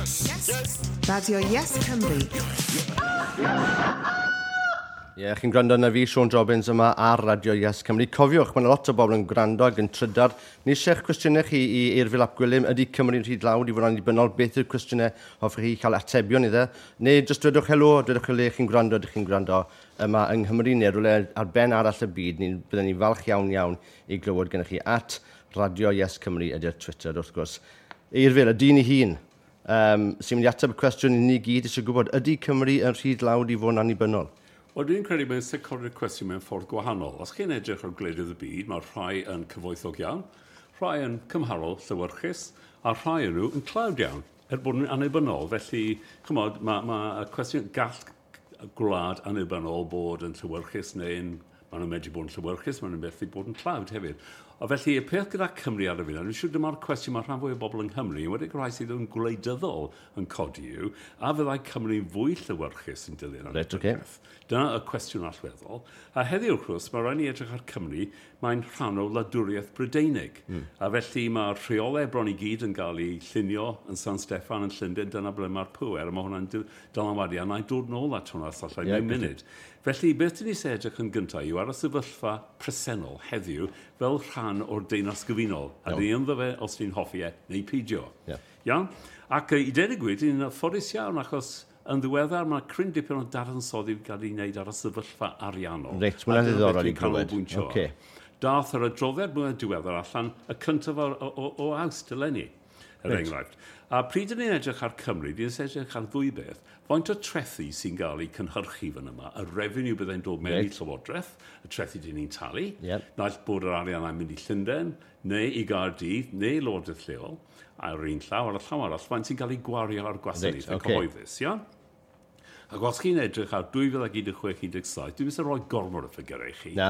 Radio Yes Cymru. Ie, yeah, chi'n gwrando arna fi, Siôn Jobbins yma ar Radio Yes Cymru. Cofiwch, mae yna lot o bobl yn gwrando ac yn trydar. Ni eisiau'ch cwestiynau chi i Eurfyl ap Gwilym. Ydy Cymru'n rhy dlawd i fod yn annibynnol? Beth yw'r cwestiynau hoffech chi cael atebion iddo? Neu jyst dwedwch helo, dwedwch le chi'n gwrando, ydych chi'n gwrando yma yng Nghymru neu rhywle ar ben arall y byd. Ni, byddwn ni'n falch iawn iawn i glywed gennych chi at Radio Yes Cymru ydy'r Twitter, wrth gwrs. Eurfyl, y dyn ei hun, sy'n mynd i ateb y cwestiwn i ni gyd eisiau gwybod, ydy Cymru yn rhy dlawd i fod yn annibynnol? Wel, dwi'n credu mae'n sicrhau'r cwestiwn mewn ffordd gwahanol. Os chi'n edrych ar gwledydd y byd, mae rhai yn cyfoethog iawn, rhai yn cymharol llewyrchus, a rhai yn nhw yn tlawd iawn, er bod nhw'n annibynnol. Felly, chymod, mae ma y cwestiwn gall gwlad annibynnol bod yn llewyrchus neu'n maen nhw'n medru bod yn llewyrchus, maen nhw'n methu bod yn tlawd hefyd. A felly, y peth gyda Cymru ar y funud, dwi'n siŵr dyma'r cwestiwn mae rhan fwy o bobl yng Nghymru, yn wedi rhai sydd yn gwleidyddol yn codi yw, a fyddai Cymru fwy llewyrchus yn dilyn Reit, ocê. Dyna y cwestiwn allweddol. A heddiw, wrth gwrs, mae rhaid ni edrych ar Cymru, mae'n rhan o wladwriaeth Brydeinig. A felly mae'r rheolau bron i gyd yn cael eu llunio yn San Steffan yn Llundain, dyna ble mae'r pŵer, a mae hwnna'n dylanwadu, a na i dod nôl at hwnna os allai mewn munud. Felly, beth dyn ni eisiau edrych yn gyntaf yw ar y sefyllfa presennol heddiw fel rhan o'r Deyrnas Gyfunol. A dyn ni ynddo fe os ni'n hoffi e neu peidio. Iawn? Ac i dweud y gwir, dyn ni'n ffodus iawn achos yn ddiweddar mae cryn dipyn o dadansoddi wedi cael ei wneud ar y sefyllfa ariannol. Reit, ma' hwnna'n A dyna beth ddiddorol i dwi'n glywed. canolbwyntio ar. Dath yr adroddiad mwyaf diweddar allan y cyntaf o Awst eleni, er enghraifft. A pryd ydyn ni'n edrych ar Cymru, dyn ni'n edrych ar ddwy beth. Faint o trethi sy'n cael eu cynhyrchu fan yma, y revenue byddai'n dod mewn i Llywodraeth, y trethi dyn ni'n talu, naill bod yr arian yn mynd i Llundain, neu i Gaerdydd, neu Lywodraeth lleol, ar un llaw, ar y llaw arall, faint sy'n cael ei gwario ar gwasanaethau cyhoeddus, ia? Ac os chi'n edrych ar 2016-17, dwi'n mynd i roi gormod o ffigurau i chi. Na.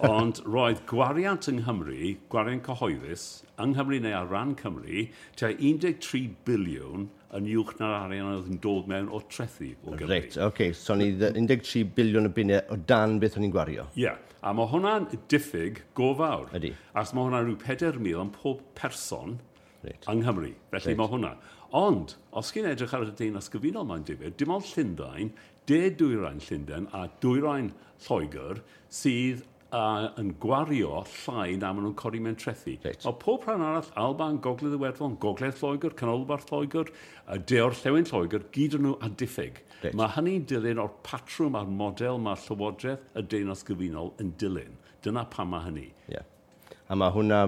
Ond roedd gwariant yng Nghymru, gwariant cyhoeddus, yng Nghymru neu ar ran Cymru, tua 13 biliwn yn uwch na'r arian oedd yn dod mewn o trethi o Gymru. Reit, oce. So ni 13 biliwn o bunnau o dan beth o'n i'n gwario. Ie, yeah. A mae hwnna'n diffyg go fawr. Ydy. Achos mae hwnna'n rhyw 4,000 am pob person yng Nghymru. Felly mae hwnna. Ond, os chi'n edrych ar y Deyrnas Gyfunol mae'n difyr, dim ond Llundain, de dwyrain Llundain a dwyrain Lloegr sydd yn gwario llai na maen nhw'n codi mewn trethi. Mae pob rhan arall, Alban, Gogledd Iwerddon, Gogledd Lloegr, Canolbarth Lloegr, De Orllewin Lloegr, gyd yn nhw a diffyg. Mae hynny'n dilyn o'r patrwm a'r model mae Llywodraeth y Deyrnas Gyfunol yn dilyn. Dyna pam mae hynny. Ie. A mae hwnna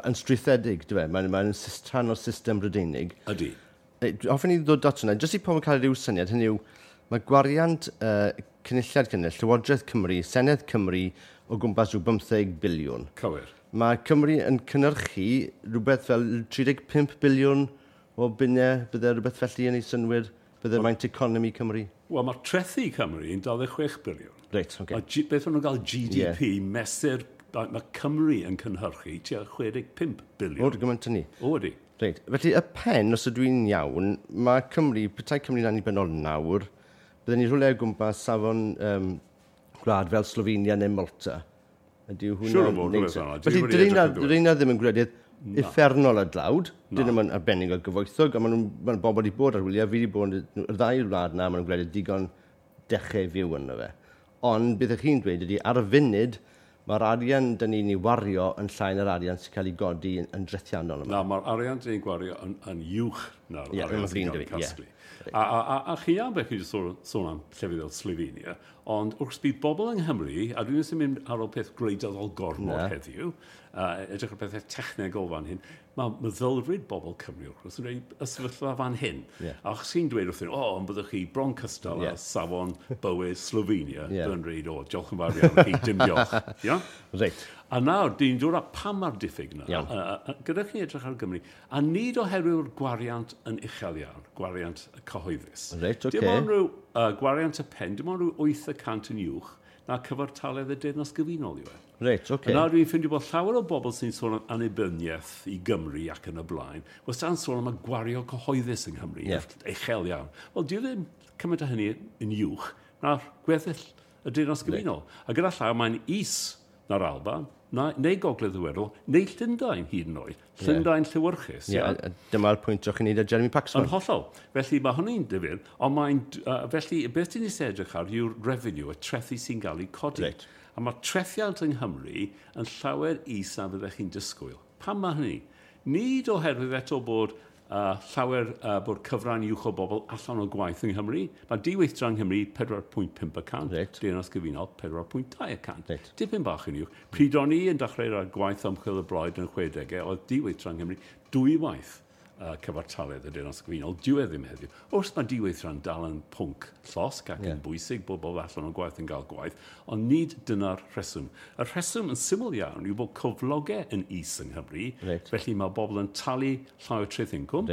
yn strwythedig, dwi e? Mae'n rhan o'r system Brydeinig. Ydy. Hoffwn i ddod at hwnna, jyst i pobl cael rhyw syniad, hynny yw, mae gwariant Cynulliad Cymru, Llywodraeth Cymru, Senedd Cymru o gwmpas rhyw 15 biliwn. Cywir. Mae Cymru yn cynhyrchu rhywbeth fel 35 biliwn o bunnau, bydde rhywbeth felly yn ei synnwyr, bydde maint economi Cymru. Wel, mae trethi Cymru yn 26 biliwn. Reit, oce. Mae beth maen nhw'n gael GDP, mesur, mae Cymru yn cynhyrchu tua 65 biliwn. O, gymaint hynny. O, ydy. Reit, felly y pen, os ydw i'n iawn, mae Cymru, petai Cymru'n annibynnol nawr, bydden ni rhywle o gwmpas safon gwlad fel Slovenia neu Malta. Ydy hwnna'n Siŵr o fod, neud rhywbeth sen? fel 'na. Dwi Felly, wedi edrych yn ddiwedd. dyn nhw ddim yn gwledydd uffernol o dlawd, dyn nhw'n arbennig o gyfoethog, a maen nhw'n ma bobl wedi bod ar wyliau, fi wedi bod yn y ddau wlad na, maen nhw'n gwledydd digon dechrau fyw yno fe. Ond beth ych chi'n dweud ydy, ar y funud, mae'r arian dyn ni'n ei wario yn llai na'r arian sy'n cael ei godi yn drethiannol yma. Na, mae'r arian dyn ni'n gwario yn uwch na'r Ie, arian mae'n sy'n flin cael ei 'da fi, ie. casglu. A chi iawn beth chi wedi sôn am llefydd fel Slovenia, ond wrth bydd bobl yng Nghymru, a dwi'n ddim yn mynd ar ôl peth gwleidyddol gormod heddiw, edrych ar pethau technegol fan hyn, mae meddylfryd bobl Cymru wrth gwrs yn dweud y sefyllfa fan hyn. A os chi'n dweud wrthyn, o, ond byddwch chi bron cystal â safon bywyd Slovenia, byddwn dweud, o, diolch yn fawr iawn chi, dim diolch. Ia? A nawr, dyn dod â pam mae'r diffyg yna, gyda chi edrych ar Gymru, a nid oherwydd gwariant yn uchel iawn, gwariant cyhoeddus. Dim ond rhyw gwariant y pen, dim ond rhyw 8% yn uwch na cyfartaledd y Deyrnas Gyfunol yw e. A nawr dwi'n ffeindio bod llawer o bobl sy'n sôn am annibyniaeth i Gymru ac yn y blaen, wastad yn sôn am y gwario cyhoeddus yng Nghymru, uchel iawn. Wel, dyw ddim cymaint o hynny yn uwch na'r gweddill y Deyrnas Gyfunol. A gyda llaw, mae'n is na'r Alban, Neu Gogledd Iwerddon, neu Llundain hyd yn oed. Llundain llewyrchus. Ie, yeah, dyma'r pwynt o'ch chi'n neud â Jeremy Paxman. Yn hollol. Felly mae hynny'n difyr, ond mae'n... felly, beth dyn ni eisiau edrych ar yw'r revenue, y trethi sy'n cael ei codi. Right. A mae trethiant yng Nghymru yn llawer is na fyddech chi'n disgwyl. Pam mae hynny? Nid oherwydd eto bod llawer bod cyfran uwch o bobl allan o gwaith yng Nghymru. Mae diweithdra yng Nghymru 4.5%, Reit. Deyrnas Gyfunol 4.2%. Reit. Dipyn bach yn uwch. Pryd o'n i yn dechrau ar gwaith ymchwil y Blaid yn 60au, oedd diweithdra yng Nghymru dwywaith cyfartaledd y Deyrnas Gyfunol. Dyw e ddim heddiw. Wrth mae diweithdra'n dal yn pwnc llosg ac yn bwysig bod bobl allan o gwaith yn gael gwaith, ond nid dyna'r rheswm. Y rheswm yn syml iawn yw bod cyflogau yn is yng Nghymru, felly mae bobl yn talu llai o treth incwm.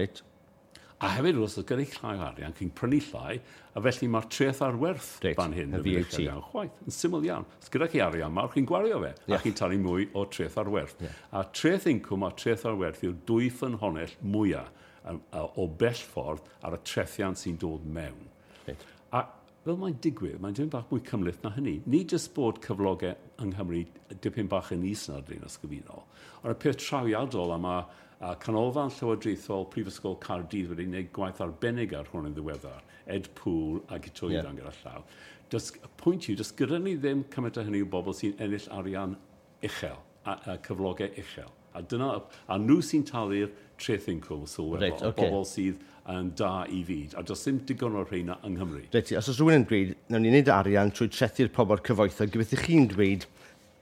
A hefyd, wrth gwrs, gyda llai o arian, chi'n prynu llai, a felly mae'r treth ar werth fan hyn y yn VAT. Iawn, chwaith, yn syml iawn. Os gyda chi arian mawr, chi'n gwario fe, a chi'n talu mwy o treth ar werth. A treth incwm a treth ar werth yw'r dwy ffynhonnell mwyaf o bell ffordd ar y trethiant sy'n dod mewn. A fel mae'n digwydd, mae'n dipyn bach mwy cymhleth na hynny. Nid jyst bod cyflogau yng Nghymru dipyn bach yn is na'r Deyrnas Gyfunol, ond y peth trawiadol am a Canolfan Llywodraethol Prifysgol Caerdydd wedi gwneud gwaith arbennig ar hwn yn ddiweddar, Ed Poole a Guto Ifan gyda llaw. Y pwynt yw, does gyda ni ddim cymaint o hynny o bobl sy'n ennill arian uchel, a cyflogau uchel. A dyna, a nhw sy'n talu'r treth incwm sylweddol, bobl sydd yn da i fyd. A does dim digon o'r rheina yng Nghymru. Reit, os oes rhywun yn dweud, nawn ni wneud arian trwy trethu'r pobl cyfoethog, gobeithio chi'n dweud,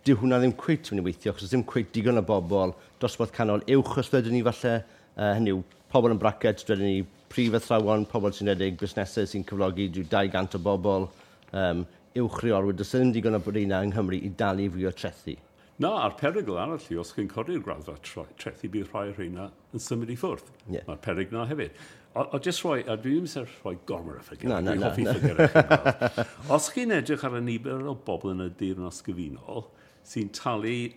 dyw hwnna ddim cweit mynd i weithio, achos ddim cweit digon o bobl dosbarth canol uwch os dwedwn ni falle, hynny yw, pobl yn bracket, dwedwn ni prif athrawon, pobl sy'n rhedeg busnesau sy'n cyflogi rhyw 200 o bobl, uwch reolwyr, does ddim digon o reina yng Nghymru i dalu fwy o trethi. Na, a'r perygl arall yw, os chi'n codi'r graddfa trethi, bydd rhai o'r rheina yn symud i ffwrdd. Mae'r perygl na hefyd. O jyst rhoi, a dwi ddim eisiau rhoi gormod o ffigurau, dwi'n hoffi ffigurau. Os chi'n edrych ar y nifer o bobl yn y Deyrnas Gyfunol sy'n talu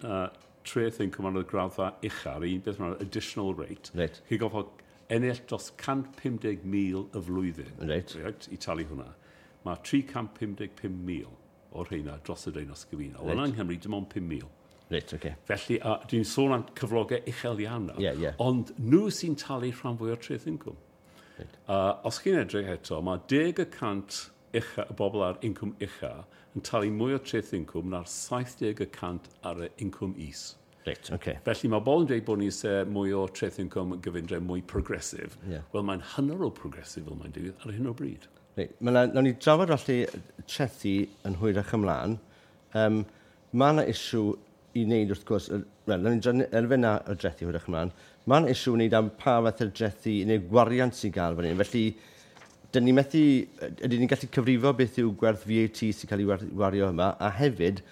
treth incwm ar y graddfa uchaf, un beth mae'n additional rate, chi'n gorfod ennill dros 150,000 y flwyddyn i talu hwnna. Mae 355,000 o'r rheina dros y Deyrnas Gyfunol. Yna yng Nghymru, dim ond 5,000. Felly, dwi'n sôn am cyflogau uchel iawn nawr, ond nhw sy'n talu rhan fwy o'r treth incwm. Os chi'n edrych eto, mae 10% ucha, y bobl ar incwm ucha yn talu mwy o treth incwm na'r 70% ar y incwm is. Felly mae bobl yn dweud bod ni eisiau mwy o treth incwm gyfundrefn mwy progresif. Wel, mae'n hynod o progresif fel mae'n digwydd ar hyn o bryd. Reit, nawn ni drafod felly trethi yn hwyrach ymlaen. Mae yna issue i wneud wrth gwrs, wel, nawn ni drafod elfen na o drethi hwyrach ymlaen. Mae yna issue i wneud am pa fath o drethi neu gwariant sy'n gael fan hyn. Felly, dyn ni methu, ydyn ni'n gallu cyfrifo beth yw gwerth VAT sy'n cael ei wario yma, a hefyd,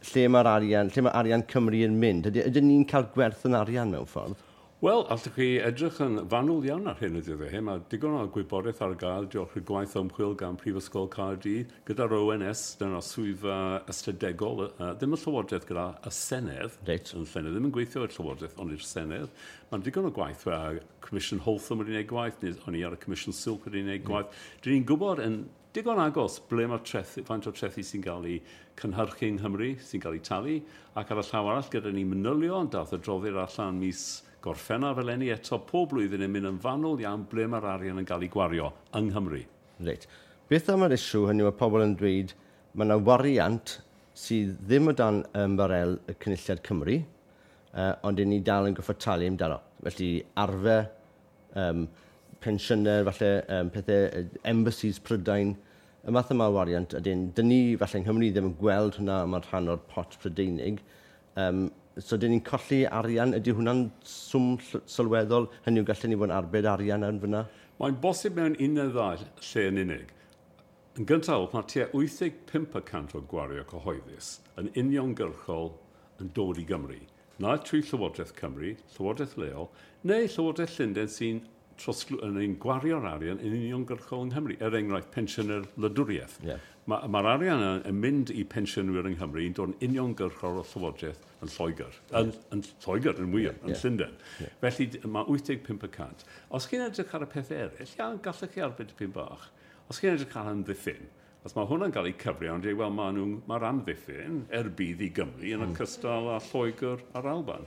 lle mae'r arian, lle mae arian Cymru yn mynd? Ydyn ni'n cael gwerth yn arian mewn ffordd? Wel, allwch chi edrych yn fanwl iawn ar hyn y dyddiau hyn. Mae digon o gwybodaeth ar gael diolch i'r gwaith ymchwil gan Prifysgol Caerdydd, gyda'r ONS, dyna'r swyddfa ystadegol, ddim y Llywodraeth gyda y Senedd, yn Llenedd, ddim yn gweithio i'r Llywodraeth, ond i'r Senedd. Mae'n digon o gwaith, Comisiwn Holtham wedi gwneud gwaith, neu o'n i ar y Comisiwn Silk wedi gwneud gwaith. Dyn ni'n gwybod yn digon agos ble mae'r trethi, faint o trethi sy'n cael ei cynhyrchu yng Nghymru, sy'n cael ei talu, ac ar y llaw arall gyda ni manylion, dath adroddiad allan mis Gorffennaf eleni eto pob blwyddyn yn mynd yn fanwl iawn ble mae'r arian yn cael ei gwario yng Nghymru. Reit. Beth am yr issue hynny mae pobl yn dweud mae yna wariant sydd ddim o dan ymbarel y Cynulliad Cymru, ond 'yn ni dal yn gorfod talu amdano. Felly arfer, pensiynau, falle pethau, embassies Prydain, y math yma o wariant, ydyn, dyn ni falle yng Nghymru ddim yn gweld hwnna yma'n rhan o'r pot Prydeinig. So dyn ni'n colli arian, ydy hwnna'n swm sylweddol? Hynny yw, gallen ni fod yn arbed arian yn fyna? Mae'n bosib mewn un neu ddau lle yn unig. Yn gyntaf, mae tua 85% o gwario cyhoeddus yn uniongyrchol yn dod i Gymru. Na trwy Llywodraeth Cymru, Llywodraeth leol, neu Llywodraeth Llundain sy'n yn ein gwario'r arian yn uniongyrchol yng Nghymru, er enghraifft pensiynau'r wladwriaeth. Mae'r arian yn mynd i pensiynwyr yng Nghymru yn dod yn uniongyrchol o Llywodraeth yn Lloegr. Yn Lloegr, yn wir, yn Llundain. Felly mae 85%. Os chi'n edrych ar y peth eraill, iawn, gallech chi arbed dipyn bach. Os chi'n edrych ar amddiffyn, Os mae hwnna'n cael ei cyfri, ond dweud, wel, mae'r amddiffyn er budd i Gymru yn ogystal â Lloegr a'r Alban.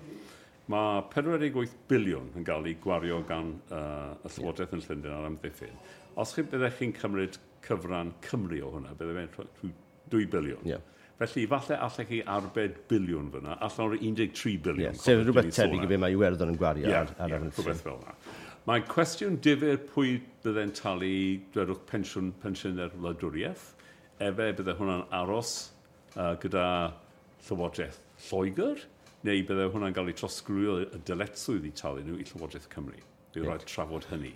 Mae 48 biliwn yn cael ei gwario gan y Llywodraeth yn Llundain ar amddiffyn. Os chi byddech chi'n cymryd cyfran Cymru o hwnna, bydde fe'n 2 biliwn. Felly, falle allech chi arbed biliwn fyna, allan o'r 13 biliwn. Sef rhywbeth tebyg i be mae Iwerddon yn gwario ar amddiffyn. Rhywbeth fel yna. Mae cwestiwn difyr pwy bydde'n talu, dwedwch, pensiynau'r wladwriaeth. Efe bydde hwnna'n aros gyda Llywodraeth Lloegr, neu bydde hwnna'n cael ei trosglwyddo y dyletswydd i talu nhw i Llywodraeth Cymru. Bydd rhaid trafod hynny.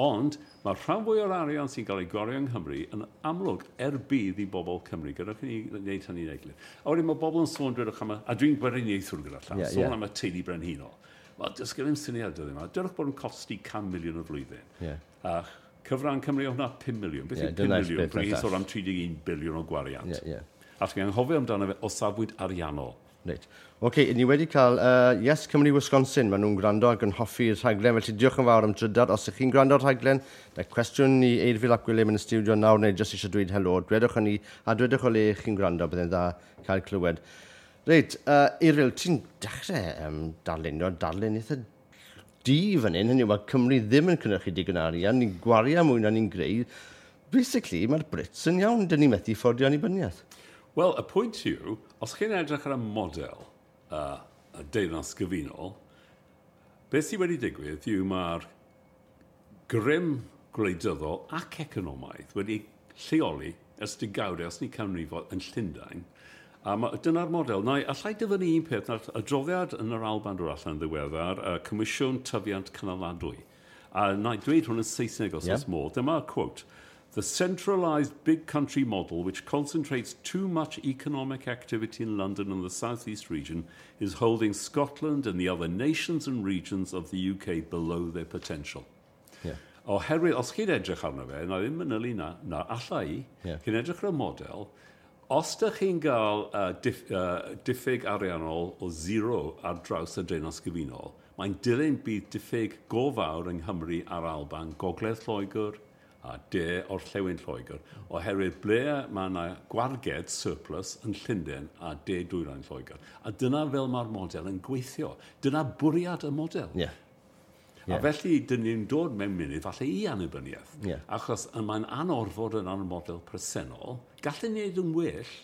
Ond mae rhan fwy o'r arian sy'n cael ei gwario yng Nghymru yn amlwg er budd i bobl Cymru. Gadewch i ni wneud hynny'n eglur. A wedyn mae bobl yn sôn, dwedwch am a dwi'n gweriniaethwr gyda llaw, sôn am y teulu brenhinol. Wel, does gen i'm syniad dyddiau yma. Dwedwch bod yn costi 100 miliwn y flwyddyn. A cyfran Cymru o hwnna 5 miliwn. Beth yw 5 dyna'r miliwn? beth Pryd na'r sôn am 31 biliwn o gwariant. A chi'n anghofio amdano fe o safbwynt ariannol. Reit. Oce, ni wedi cael Yes Cymru Wisconsin. Maen nhw'n gwrando ac yn hoffi'r rhaglen, felly diolch yn fawr am drydar. Os ych chi'n gwrando ar rhaglen, na cwestiwn i Eurfyl ap Gwilym yn y stiwdio nawr, neu jyst eisiau dweud helo, dwedwch hynny, a dwedwch o le chi'n gwrando, byddai'n dda cael clywed. Reit, Eurfyl, ti'n dechrau darlunio, darlun eitha du fan hyn, hynny yw, mae Cymru ddim yn cynhyrchu digon arian, ni'n gwario mwy na ni'n greu. Basically, mae'r Brits yn iawn, dyn ni methu fforddio annibyniaeth. Wel, y pwynt yw, os chi'n edrych ar y model y Deyrnas Gyfunol, beth sydd wedi digwydd yw mae'r grym gwleidyddol ac economaidd wedi lleoli ers degawdau, os ni canrifoedd, yn Llundain. A dyna'r model. Na, allai dyfynnu un peth, na'r adroddiad yn yr Alban dod allan ddiweddar, y Comisiwn Tyfiant Cynaladwy. A na i dweud hwn yn Saesneg os oes modd. Dyma quote. The centralised big country model, which concentrates too much economic activity in London and the South East region, is holding Scotland and the other nations and regions of the UK below their potential. Oherwydd, os chi'n edrych arno fe, na ddim manylu na alla i, chi'n edrych ar y model, os dych chi'n gael diffyg ariannol o zero ar draws y Deyrnas Gyfunol, mae'n dilyn bydd diffyg go fawr yng Nghymru a'r Alban, Gogledd Lloegr a De Orllewin Lloegr, oherwydd ble mae yna gwarged surplus yn Llundain a De Dwyrain Lloegr. A dyna fel mae'r model yn gweithio. Dyna bwriad y model. A felly, dyn ni'n dod mewn munud falle i annibyniaeth. Achos mae'n anorfod yn y model presennol. Gallen ni wneud yn well,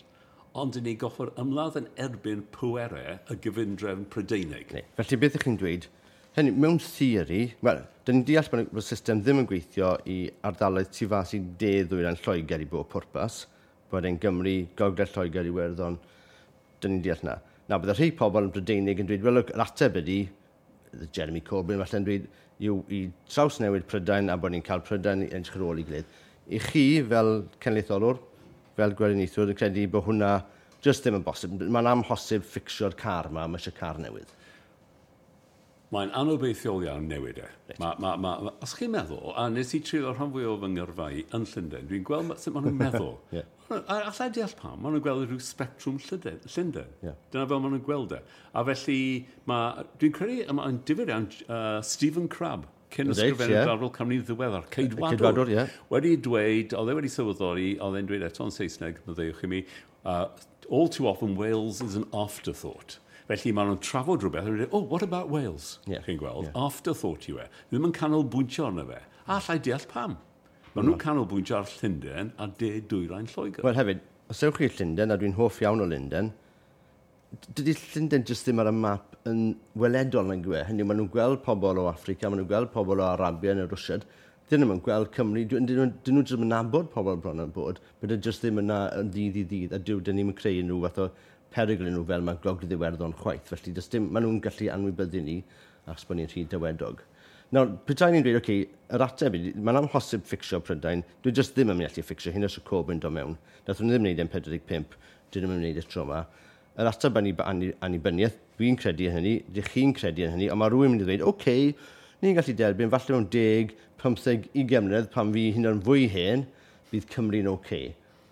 ond dyn ni goffod ymladd yn erbyn pwerau y gyfundrefn Prydeinig. Neu. Felly, beth ych chi'n dweud? Hynny, mewn theori, wel, dyn ni'n deall bod y system ddim yn gweithio i ardaloedd tu fas i de ddwyrain Lloegr i bob pwrpas, bod e'n Gymru, Gogledd Lloegr, Iwerddon, dyn ni'n deall na. Na, bydde rhai pobl yn Brydeinig yn dweud, wel, look, yr ateb ydy, Jeremy Corbyn falle'n dweud, yw i trawsnewid Prydain a bod ni'n cael Prydain i edrych ar ôl i gilydd. I chi, fel cenedlaetholwr, fel gweriniaethwr, yn credu bod hwnna jyst ddim yn bosib. Mae'n amhosib fficsio'r car yma, mae eisiau car newydd. Mae'n anobeithiol iawn newid e. Os chi'n meddwl, a nes i treulio rhan fwy o fy ngyrfa i yn Llundain, dwi'n gweld sut maen nhw'n meddwl. A allai deall pam, maen nhw'n gweld rhyw sbectrwm Llundain. Dyna fel maen nhw'n gweld e. A felly, dwi'n credu, mae'n difyr iawn, Stephen Crabb, cyn ysgrifennydd Gwladol Cymru ddiweddar, Ceidwadwr, Ceidwadwr, ie. wedi dweud, oedd e wedi sylweddoli, oedd e'n dweud eto'n Saesneg, maddeuwch i mi, all too often Wales is an afterthought. Felly maen nhw'n trafod rhywbeth, a nhw'n dweud, oh, what about Wales? Chi'n gweld, afterthought yw e. Ddim yn canolbwyntio arno fe. A allai deall pam. Maen nhw'n canolbwyntio ar Llundain a de dwyrain Lloegr. Wel hefyd, os ewch chi i Llundain, a dwi'n hoff iawn o Lundain, dydy Llundain jyst ddim ar y map yn weledol nag yw e. Hynny yw, maen nhw'n gweld pobl o Affrica, maen nhw'n gweld pobl o Arabia neu Rwsiad. Dyn nhw'n gweld Cymru, dyn nhw jyst yn nabod pobl bron yn bod, but dyn jyst ddim yna yn ddydd i ddydd, a dyn ni'n creu unrhyw fath o perygl nhw fel mae Gogledd Iwerddon chwaith. Felly does dim, maen nhw'n gallu anwybyddu ni achos bod ni'n rhy dawedog. Nawr, petai ni'n dweud, oce, yr ateb ydy, mae'n amhosib fficsio Prydain, dwi jyst ddim yn mynd i allu fficsio hyn os y Corbyn dod mewn. Nath nhw ddim wneud e'n 45, dyn nhw'n wneud e tro yma. Yr ateb annibyniaeth, dwi'n credu yn hynny, dych chi'n credu yn hynny, ond mae rhywun mynd i ddweud, oce, ni'n gallu derbyn, falle mewn 10, 15, 20 mlynedd, pan fi hyn o'n fwy hen, bydd Cymru'n oce.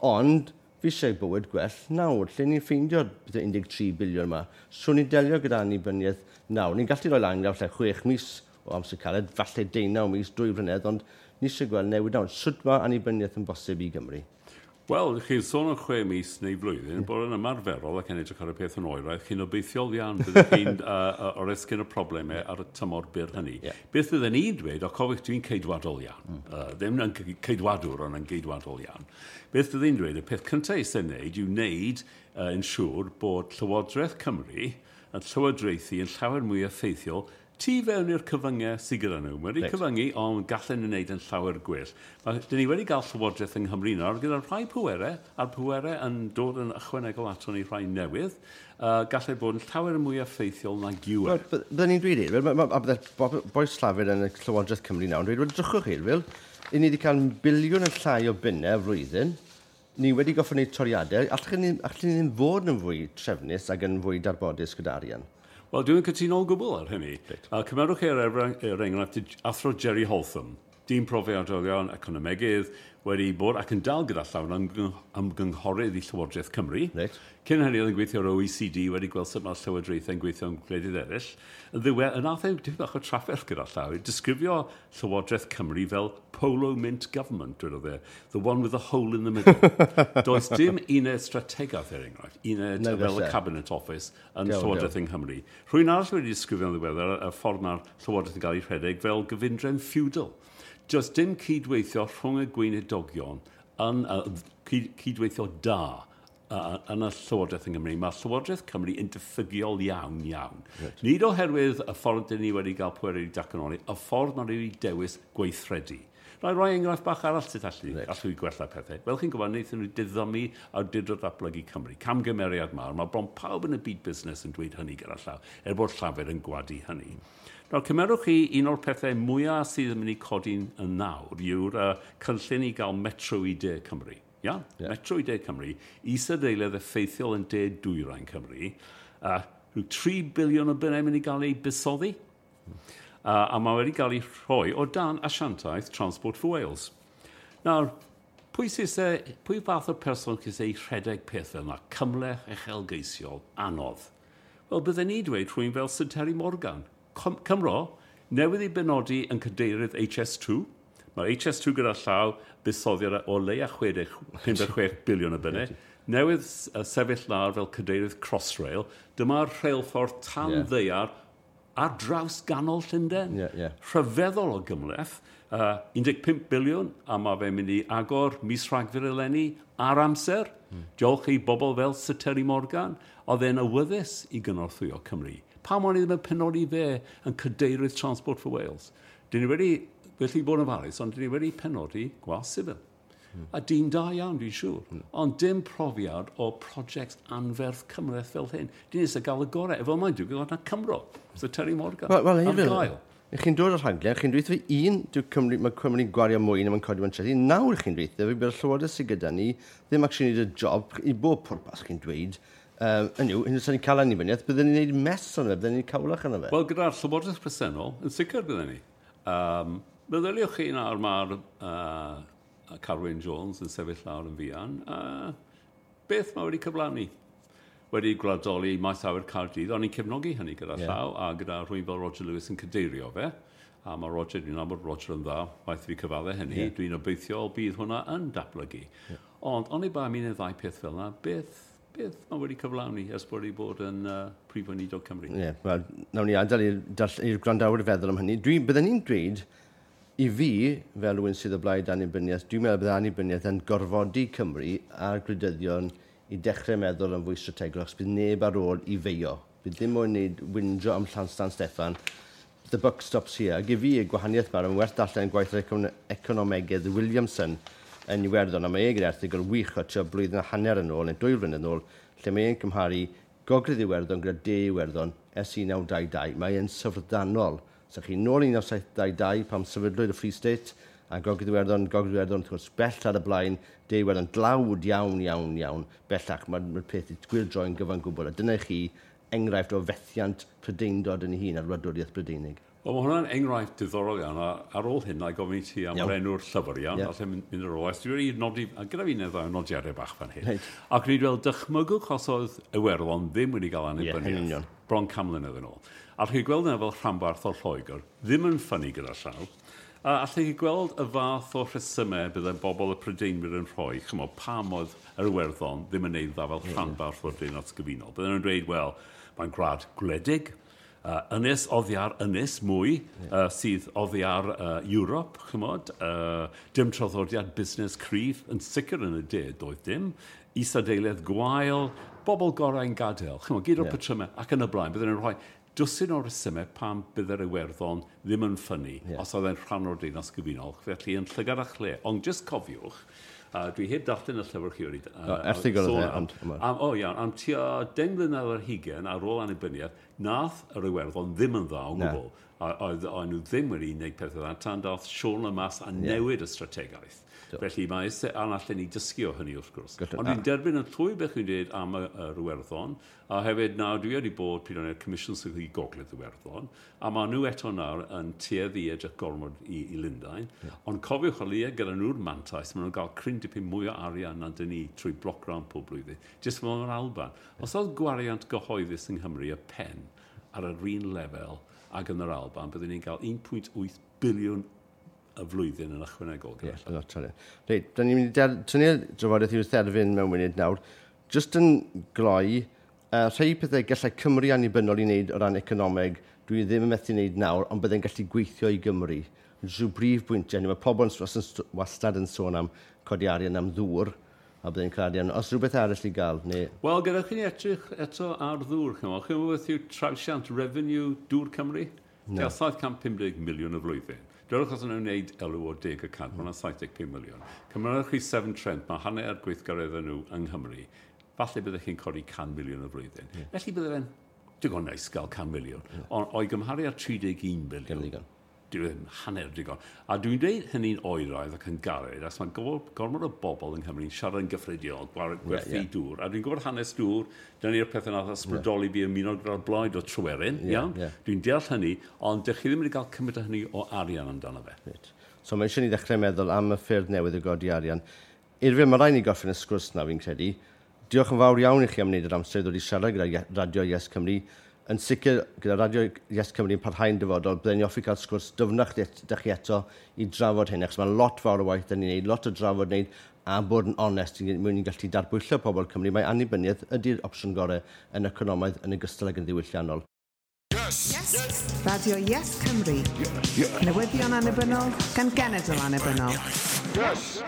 Ond, fi eisiau bywyd gwell nawr, lle ni'n ffeindio'r 13 biliwn yma. So ni'n delio gyda annibyniaeth nawr. Ni'n gallu rhoi lan gyda falle 6 mis o amser caled, falle 19 mis, 2 flynedd, ond ni eisiau gweld newid nawr. Sut mae annibyniaeth yn bosib i Gymru? Wel, chi'n sôn am 6 mis neu flwyddyn, bod yn ymarferol ac yn edrych ar y peth yn oeraidd, chi'n obeithiol iawn byddwch chi'n oresgyn y problemau ar y tymor byr hynny. Beth fydden ni'n dweud, o cofiwch dwi'n ceidwadol iawn, ddim yn ceidwadwr ond yn geidwadol iawn. Beth fydden ni'n dweud, y peth cyntaf eisiau wneud yw wneud yn siŵr bod Llywodraeth Cymru yn llywodraethu yn llawer mwy effeithiol tu fewn i'r cyfyngau sydd gyda nhw. Mae wedi cyfyngu, ond gallen nhw wneud yn llawer gwell. Dyn ni wedi cael llywodraeth yng Nghymru nawr gyda rhai pwerau, a'r pwerau yn dod yn ychwanegol ato ni rhai newydd, gallai bod yn llawer mwy effeithiol nag yw e. Byddwn ni'n dweud, a bydde bois Llafur yn y Llywodraeth Cymru nawr yn dweud, wel, drychwch chi, Wil, i ni wedi cael biliwn yn llai o bunnau flwyddyn, ni wedi goffod wneud toriadau, allwn ni ddim fod yn fwy trefnus ac yn fwy darbodus gyda arian? Wel, dwi'n cytuno o gwbl ar hynny. Right. Cymerwch chi er enghraifft athro Jerry Holtham, dyn profiadol iawn, economegydd, wedi bod ac yn dal gyda llawn ymgynghorydd i Llywodraeth Cymru. Right. Cyn hynny oedd yn gweithio ar OECD, wedi gweld sut mae'r llywodraethau'n gweithio yn gwledydd eraill. Yn ddiwedd, yn nath e dipyn bach o trafferth gyda llaw, disgrifio Llywodraeth Cymru fel Polo Mint Government, dwedodd e, the one with the hole in the middle. Does dim uned strategaeth, er enghraifft, uned fel y Cabinet Office yn Llywodraeth yng Nghymru. Rhywun arall wedi disgrifio'n ddiweddar y ffordd mae'r Llywodraeth yn cael ei rhedeg fel gyfundrefn feudal. Does dim cydweithio rhwng y gweinidogion yn cydweithio da yn y Llywodraeth yng Nghymru. Mae Llywodraeth Cymru yn diffygiol iawn, iawn. Right. Nid oherwydd y ffordd dyn ni wedi cael pwerau i datganoli, y ffordd maen nhw wedi dewis gweithredu. Na i roi enghraifft bach arall sut allu i gwella pethau. Fel chi'n gwybod, wnaethon nhw diddymu awdurdod datblygu Cymru. Camgymeriad mawr. Mae bron pawb yn y byd busnes yn dweud hynny gyda llaw, er bod Llafur yn gwadu hynny. Nawr, cymerwch chi un o'r pethau mwyaf sydd yn mynd i codi'n yn nawr yw'r cynllun i gael metro i De Cymru. Ia? Yeah. Metro i De Cymru, isadeiledd effeithiol yn De Dwyrain Cymru, rhyw 3 biliwn o bunnau mynd i gael ei buddsoddi. A mae wedi cael ei rhoi o dan asiantaeth Transport for Wales. Nawr, pwy fath o person sy'n ei rhedeg peth fel yna? Cymhleth, uchelgeisiol, anodd. Wel, bydden ni dweud rhywun fel Sir Terry Morgan. Cymro, newydd ei benodi yn cadeirydd HS2. Mae HS2 gyda llaw buddsoddiad o leia 56 biliwn o bunnau. Newydd sefyll lawr fel cadeirydd Crossrail. Dyma'r rheilffordd tan ddaear ar draws ganol Llundain. Rhyfeddol o gymhleth. 15 biliwn, a mae fe'n mynd i agor mis Rhagfyr eleni ar amser. Diolch i bobl fel Sir Terry Morgan, oedd e'n awyddus i gynorthwyo Cymru. Pam o'n i ddim yn penodi fe yn cadeirydd Transport for Wales? Dyn ni wedi, felly bod yn ofalus, ond dyn ni wedi penodi gwas sifil. A dyn da iawn, dwi'n siŵr. Ond dim profiad o prosiect anferth cymhleth fel hyn. Dyn ni eisiau gael y gorau. Efo mae'n digwydd oedd na Cymro. So Terry Morgan. Wel, ar gael. Chi'n dod o'r rhaglen, chi'n dweud fi un, Cymru, mae Cymru'n gwario mwy na mae'n codi mewn trethi. Nawr chi'n dweud fi bydd y llywodraeth sydd gyda ni ddim actually neud y job i bob pwrpas chi'n dweud. Hynny yw, hyn ni'n cael annibyniaeth, byddwn ni'n gwneud mess o'n fe, byddwn ni'n cawlach yna fe. Wel, gyda'r llywodraeth presennol, yn sicr byddwn ni. Meddyliwch chi nawr mae'r Carwyn Jones yn sefyll lawr yn fuan. Beth mae wedi cyflawni? Wedi gwladoli maes awyr Caerdydd, o'n i'n cefnogi hynny gyda llaw, a gyda rhywun fel Roger Lewis yn cadeirio fe. A mae Roger, dwi'n nabod Roger yn dda, waith fi cyfadde hynny, dwi'n obeithiol bydd hwnna yn datblygu. Ond, oni bai am un neu ddau peth fel yna, beth mae wedi cyflawni ers bod wedi bod yn Prif Weinidog Cymru? Ie, yeah, wel, nawn ni adael i'r gwrandawyr feddwl am hynny. Bydden ni'n dweud, i fi, fel rhywun sydd o blaid annibyniaeth, dwi'n meddwl bydd annibyniaeth yn gorfodi Cymru a'r gwleidyddion i dechrau meddwl yn fwy strategol, achos bydd neb ar ôl i feio. Bydd ddim moyn wneud wynjo am Llan Steffan. The buck stops here. Ac i fi, y gwahaniaeth mae'n werth darllen gwaith yr economegydd Williamson yn Iwerddon, a mae e gyda erthygl wych o tua blwyddyn a hanner yn ôl, neu 2 flynedd yn ôl, lle mae e'n cymharu Gogledd Iwerddon gyda De Iwerddon ers 1922. Mae e'n syfrdanol. So chi nôl 1922 pam sefydlwyd y Free State, a Gogledd Iwerddon, wrth gwrs, bell ar y blaen, De Iwerddon dlawd iawn, iawn, iawn, bellach. Mae'r peth i gwyrdroi'n gyfan gwbl. A dyna chi enghraifft o fethiant Prydeindod yn ei hun a'r wladwriaeth Brydeinig. Wel, mae hwnna'n enghraifft diddorol iawn, a ar ôl hyn, na i gofyn i ti am yr enw'r llyfr iawn, yeah. Allai mynd ar ôl. Dwi wedi nodi, a gyda fi neu ddau nodiadau bach fan hyn. Right. Ac ni wedi weld dychmygwch os oedd Iwerddon ddim wedi cael annibyniaeth. Yeah, bron 100 mlynedd yn ôl. A chi'n gweld yna fel rhanbarth o Lloegr, ddim yn ffynnu gyda llaw. A allech chi gweld y fath o rhesymau byddai bobl y Prydeinwyr yn rhoi, chymod, pam oedd yr Iwerddon ddim yn neud dda fel rhanbarth o'r Deyrnas Gyfunol. Bydden nhw'n dweud, wel, mae'n gwlad gwledig, ynys oddi ar ynys mwy sydd oddi ar Ewrop, chymod, dim traddodiad busnes cryf, yn sicr yn y de, doedd dim, isadeiledd gwael, bobl gorau'n gadael, chymod, gyd o'r patrymau ac yn y blaen, bydden nhw'n rhoi dwsin o resymau pam bydde'r Iwerddon ddim yn ffynnu os oedd e'n rhan o'r Deyrnas Gyfunol, felly yn llygad a chle. Ond jyst cofiwch, dwi heb darllen y llyfr chi wedi erthygl oedd e, ond o iawn, am tua 10 mlynedd ar hugain ar ôl annibyniaeth, nath yr Iwerddon ddim yn dda o gwbl. Oedd nhw ddim wedi gwneud pethau dda, tan dath Siôn Lemass a newid y strategaeth. Felly mae eisiau allan ni dysgu o hynny wrth gwrs. Ond dwi'n derbyn yn llwy beth chi'n dweud am yr Iwerddon, a hefyd nawr dwi wedi bod pryd o'n i'r Comisiwn Sefydlu Gogledd Iwerddon, a maen nhw eto nawr yn tueddu i edrych gormod i Lundain. Ond cofiwch o leia gyda nhw'r mantais, maen nhw'n cael cryn dipyn mwy o arian na dyn ni trwy block grant pob blwyddyn, jyst fel yr Alban. Os oedd gwariant gyhoeddus yng Nghymru y pen ar yr un lefel ag yn yr Alban, byddwn ni'n cael 1.8 biliwn y flwyddyn yn ychwanegol. Ie, yn lot o. Reit, da ni'n mynd i tynnu'r drafodaeth i'w therfyn mewn munud nawr. Just yn gloi, rhai pethau gallai Cymru annibynnol i wneud o ran economeg, dwi ddim yn methu wneud nawr, ond byddai'n gallu gweithio i Gymru. Rhyw brif bwyntiau, mae pobl wastad yn sôn am codi arian am ddŵr, a byddai'n cael arian. Os rhywbeth arall i gael, neu... Wel, gyda chi'n edrych eto ar ddŵr, chymod. Chi'n gwybod beth yw trawsiant revenue Dŵr Cymru? No. 750 miliwn y flwyddyn. Dwedwch os nhw'n wneud elw o 10%, mae hwnna'n 75 miliwn. Cymrwch chi Severn Trent, mae hanner gweithgareddau nhw yng Nghymru. Falle byddech chi'n codi 100 miliwn y flwyddyn. Felly bydde fe'n digon neis gael 100 miliwn. Ond o'i gymharu ar 31 miliwn, dyw e ddim hanner digon. A dwi'n dweud hynny'n oeraidd ac yn gared, achos mae gormod o bobl yng Nghymru'n siarad yn gyffredinol, gwerthu dŵr. A dwi'n gwybod hanes dŵr, dyna ni'r pethau nath ysbrydoli fi ymuno gyda'r blaid o Tryweryn, iawn? Dwi'n deall hynny, ond dych chi ddim wedi cael cymaint o hynny o arian amdano fe. Right. So mae eisiau ni ddechrau meddwl am y ffyrdd newydd o godi arian. Eurfyl, mae rhaid ni gorffen y sgwrs na fi'n credu. Diolch yn fawr iawn i chi am wneud yr amser i ddod i siarad gyda Radio Yes Cymru. Yn sicr, gyda Radio Yes Cymru yn parhau'n dyfodol, byddwn ni hoffi cael sgwrs dyfnach dych chi eto i drafod hyn, achos mae lot fawr o waith dyn ni'n neud, lot o drafod wneud, a bod yn onest, mwyn ni'n gallu darbwyllo pobl Cymru. Mae annibyniaeth ydy'r opsiwn gorau yn economaidd yn ogystal ag yn ddiwylliannol. Yes! Yes! Radio Yes Cymru. Yes. Newyddion annibynnol gan genedl annibynnol. Yes!